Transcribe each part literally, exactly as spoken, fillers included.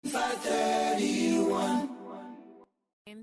M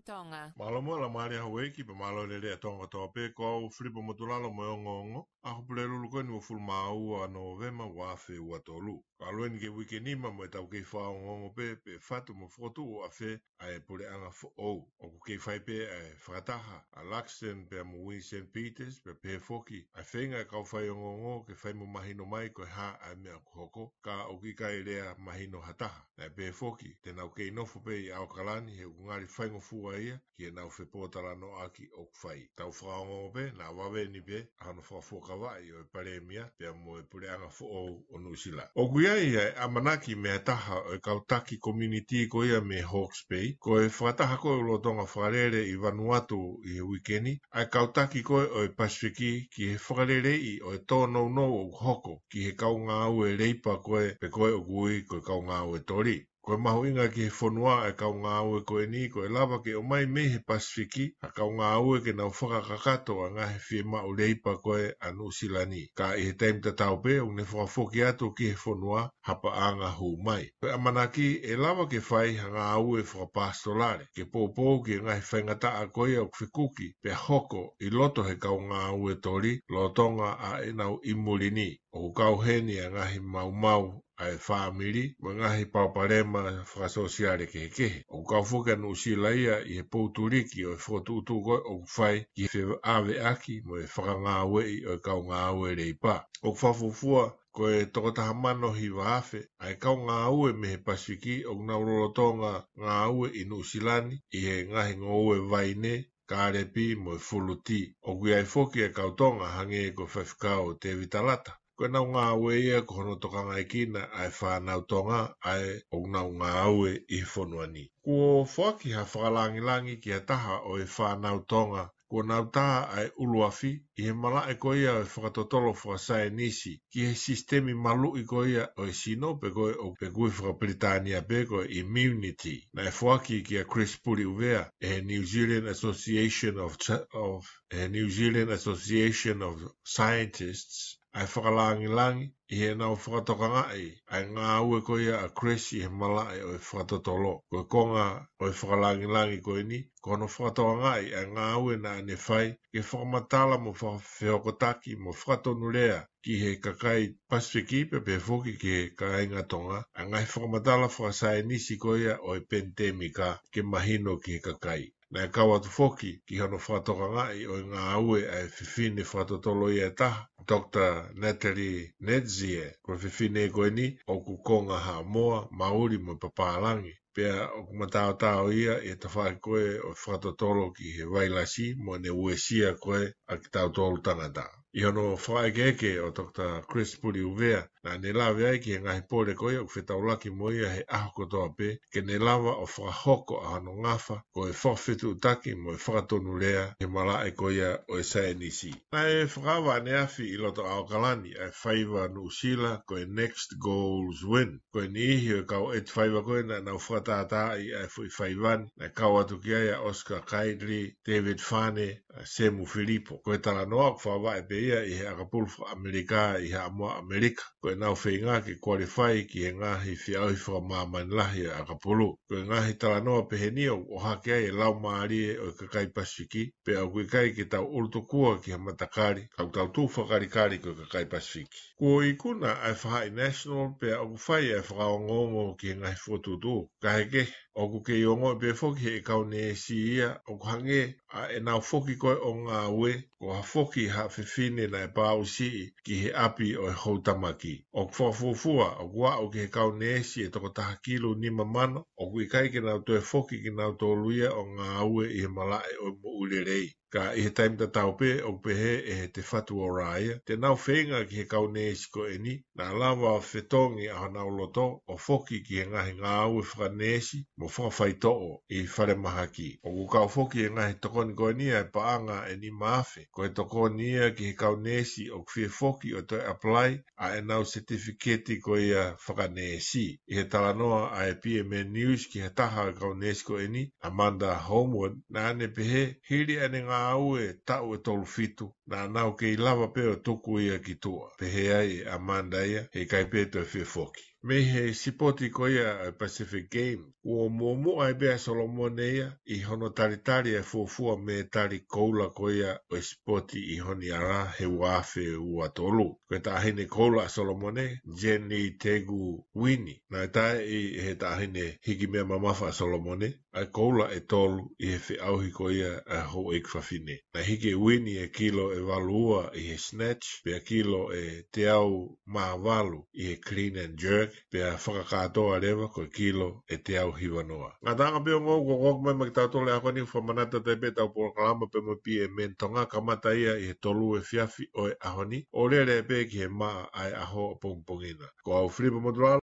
Tonga. Mālō mo e laumālie ʻa houʻeiki pea mālō e lelei ʻa Tonga kotoa pē, ko au Filipo Motulalo mo e ongoongo ʻa e Pulelulu ko eni ʻo e uofulu mā ua ʻo Nōvema ua afe ua tolu. Ka ʻalu eni ki he uike nima mo ʻetau kei fakaongoongo pē pe ʻe fatu mo fokotuʻu ʻafē ʻa e puleʻanga foʻou. ʻOku kei fai pē ʻa e fakataha ʻa Luxton pea mo Winston Peters pea pehē foki ʻa e feinga ʻa e kau faiongoongo ke fai mo mahino mai ko e hā ʻa e meʻa ʻoku hoko, ka ʻoku ʻikai lea mahino ha taha. Naʻe pehē foki te nau kei nofo pē ʻi ʻAokalani he ʻoku ngali faingofua ia ki heʻenau fepōtalanoaʻaki ʻoku fai. Tau fakaongoongo pē naʻa vave ni pē ʻa hono fakafuakavaʻi ʻo e Palēmia pea mo e puleʻanga foʻou ʻo Nuʻusila. ʻOku ʻi ai ʻa e ʻamanaki mei ha taha ʻo e kau taki community ko ia mei Hawke's Bay, ko e fakataha ko ē ʻoku lolotonga fakalele ʻi Vanuatu ʻi he uike ni, ʻa e kau taki ko ē ʻo e Pasifiki ki he fakaleleiʻi ʻo e tōnounou ʻoku hoko ki he kau ngāue leipa ko ē pe ko ē ʻoku ui ko e kau ngāue toli. Ko e mahuʻinga ki he fonua ʻa e kau ngāue ko eni, ko e lava ke ʻomai mei he Pasifiki ʻa e kau ngāue ke nau fakakakato ʻa e ngaahi fiemaʻu leipa ko ē ʻa Nuʻusila ni. Ka ʻi he taimi tatau pē, ʻoku ne fakafoki atu ki he fonua ha paʻanga hū mai. Ko e ʻamanaki ʻe lava ke fai ha ngāue fakapasitolale, ke poupou ki he ngaahi faingataʻa ko ia ʻoku fekuki pea hoko ʻi loto he kau ngāue toli lolotonga ʻa ʻenau ʻi muli ni. ʻOku kau heni ʻa e ngaahi maumau ʻa e fāmili mo e ngaahi palopalema fakasōsiale kehekehe. ʻOku kau foki ʻa Nuʻusila ia ʻi he poutuliki ʻo e fokotuʻutuʻu ko ē ʻoku fai ki he feʻaveʻaki mo e fakangāueʻi ʻo e kau ngāue leipa. ʻOku fakafuofua ko e toko taha mano hiva afe ʻa e kau ngāue mei he Pasifiki ʻoku nau lolotonga ngāue ʻi Nuʻusila ni ʻi he ngaahi ngoue vaine, kālepi mo e fuluti. ʻOku ʻi ai foki ʻa e kau Tonga hangē ko e faifekau Tēvita Lata. Ko ʻenau ngāue ia ko hono tokangaekina ʻa e fānau Tonga ʻa ē ʻoku nau ngāue ʻi he fonua ni. Kuo foaki ha fakalāngilangi ki ha taha ʻo e fānau Tonga kuo nau tā ʻa e ʻuluafi ʻi he malaʻe ko ia ʻo e fakatotolo fakasaienisi ki he sisitemi maluʻi ko ia ʻo e sino pe ko ē ʻoku ui fakapilitānia pē ko e immunity. Naʻe foaki kia Chris Puliʻuvea ʻe he New Zealand Association of Ch-, of, ʻe he New Zealand Association of Scientists ʻa e fakalāngilangi ʻi heʻenau fakatokangaʻi ʻa e ngāue ko ia ʻa Chris ʻi he malaʻe ʻo e fakatotolo. Ko e konga ʻo e fakalāngilangi ko eni, ko hono fakatokangaʻi ʻa e ngāue naʻa ne fai ke fakamatala mo fakafehokotaki mo fakatonulea ki he kakai Pasifiki pea pehē foki ki he kāinga Tonga ʻa e ngaahi fakamatala fakasaienisi ko ia ʻo e penitēmika ke mahino ki he kakai. Naʻe kau atu foki ki hono fakatokangaʻi ʻo e ngāue ʻa e fefine fakatotolo ia ʻe taha, Doctor Natalie Netzie. Ko e fefine ko eni ʻoku konga Haʻamoa, Mauli mo e papālangi. Pea ʻoku mataotao ia ʻi he tafaʻaki ko ē ʻo e fakatotolo ki he vailasi mo ʻene uesia ko ē ʻa kitautolu tangata. ʻI hono fakaʻekeʻeke ʻo Doctor Chris Puliʻuvea, naʻa ne lave ai ki he ngaahi pole ko ia ʻoku fetaulaki mo ia he ʻaho kotoa pē, ke ne lava ʻo fakahoko ʻa hono ngafa ko e fakafetuʻutaki mo e fakatonulea he malaʻe ko ia ʻo e saienisi. Naʻe fakaava ʻaneafi ʻi loto ʻAokalani ʻa e faiva Nuʻusila ko e Next Goals Win. Ko e niʻihi ʻo e kau ʻeti faiva ko ē naʻa nau fakatātaaʻi ʻa e foʻi faiva ni, naʻe kau atu ki ai ʻa Oscar Kitely, David Fane, ʻa Semu Filipo. Ko e talanoa ʻoku fakavaʻe pē ia ʻi he ʻakapulu faka-ʻAmelika ʻi Haʻamoa ʻAmelika. Ko ʻenau feinga ke kualifai ki he ngaahi feʻauhi fakamāmani lahi ʻo e ʻakapulu. Ko e ngaahi talanoa peheni ʻoku ʻohake ai e laumālie ʻo e kakai Pasifiki, pea ʻoku ʻikai ke tau ʻulutukua ki he matakali, ka ʻoku tau tuʻu fakakalikali ko e kakai Pasifiki. Kuo ikuna ʻa e faʻahi National pea ʻoku fai ʻa e fakaongoongo ki he ngaahi fokotuʻutuʻu. Kae kehe, ʻoku kei ongoʻi pē foki ʻe he kau neesi ia ʻoku hangē ʻa ʻenau foki ko ē ʻo ngāue, ko ha foki ha fefine naʻe pāusiʻi ki he ʻapi ʻo e houtamaki. ʻOku fakafuofua ʻoku aʻu ki he kau neesi ʻe toko taha kilu nima mano ʻoku ʻikai ke nau toe foki kinautolu ia ʻo ngāue ʻi he malaʻe ʻo e moʻui lelei. Ka ʻi he taimi tatau pē ʻoku pehē ʻe he Te Whatu Ora ia, te nau feinga ki he kau neesi ko eni, naʻa lava ʻo fetongi ʻa honau loto ʻo foki ki he ngaahi ngāue fakaneesi mo fakafaitoʻo ʻi falemahaki. ʻOku kau foki e ngaahi tokoni ko eni ʻa e paʻanga ʻe nima afe. Ko e tokoni ia ki he kau neesi ʻoku fie foki ʻo toe apply ʻa ʻenau setifiketi ko ia fakaneesi. ʻI he talanoa ʻa e P M N News ki ha taha ʻo e kau neesi ko eni, Amanda Holmwood, naʻa ne pehē, hili ʻene ngāue taʻu ʻe tolu fitu, naʻa nau kei lava pē ʻo tuku ia ki tuʻa. Pehē ai ʻe Amanda ia, heʻikai pē toe fie foki. Mei he sipoti ko ia ʻa e Pacific Games, kuo muʻomuʻa ai pē ʻa Solomone ia ʻi hono talitali ʻa e fuofua mētali koula ko ia ʻo e sipoti ʻi Honiara he ua afe ua tolu. Ko e taʻahine koula ʻa Solomone, Jenny Tegu Wini, naʻe taeʻi ʻe he taʻahine hiki meʻa mamafa ʻa Solomone ʻa e koula ʻe tolu ʻi he feʻauhi ko ia ʻa e houʻeiki fafine. Naʻe hiki ʻe Wini e kilo ʻe valu ua ʻi he snatch, pea kilo ʻe teau mā valu ʻi he clean and jerk, pea fakakātoa leva ko e kilo ʻe teau hiva noa. Ngataʻanga pē ʻo e ngāue kuo ʻoatu mai maʻa kitautolu he ʻaho ni. Fakamanatu atu ai pē ʻetau polokalama pea mo e P M N Tonga, kamata ia ʻi he tolu efiafi ʻo e ʻaho ni, ʻo lele pē ki he maʻa ʻa e ʻaho ʻapongipongi na. Ko au Filipa Motulalo,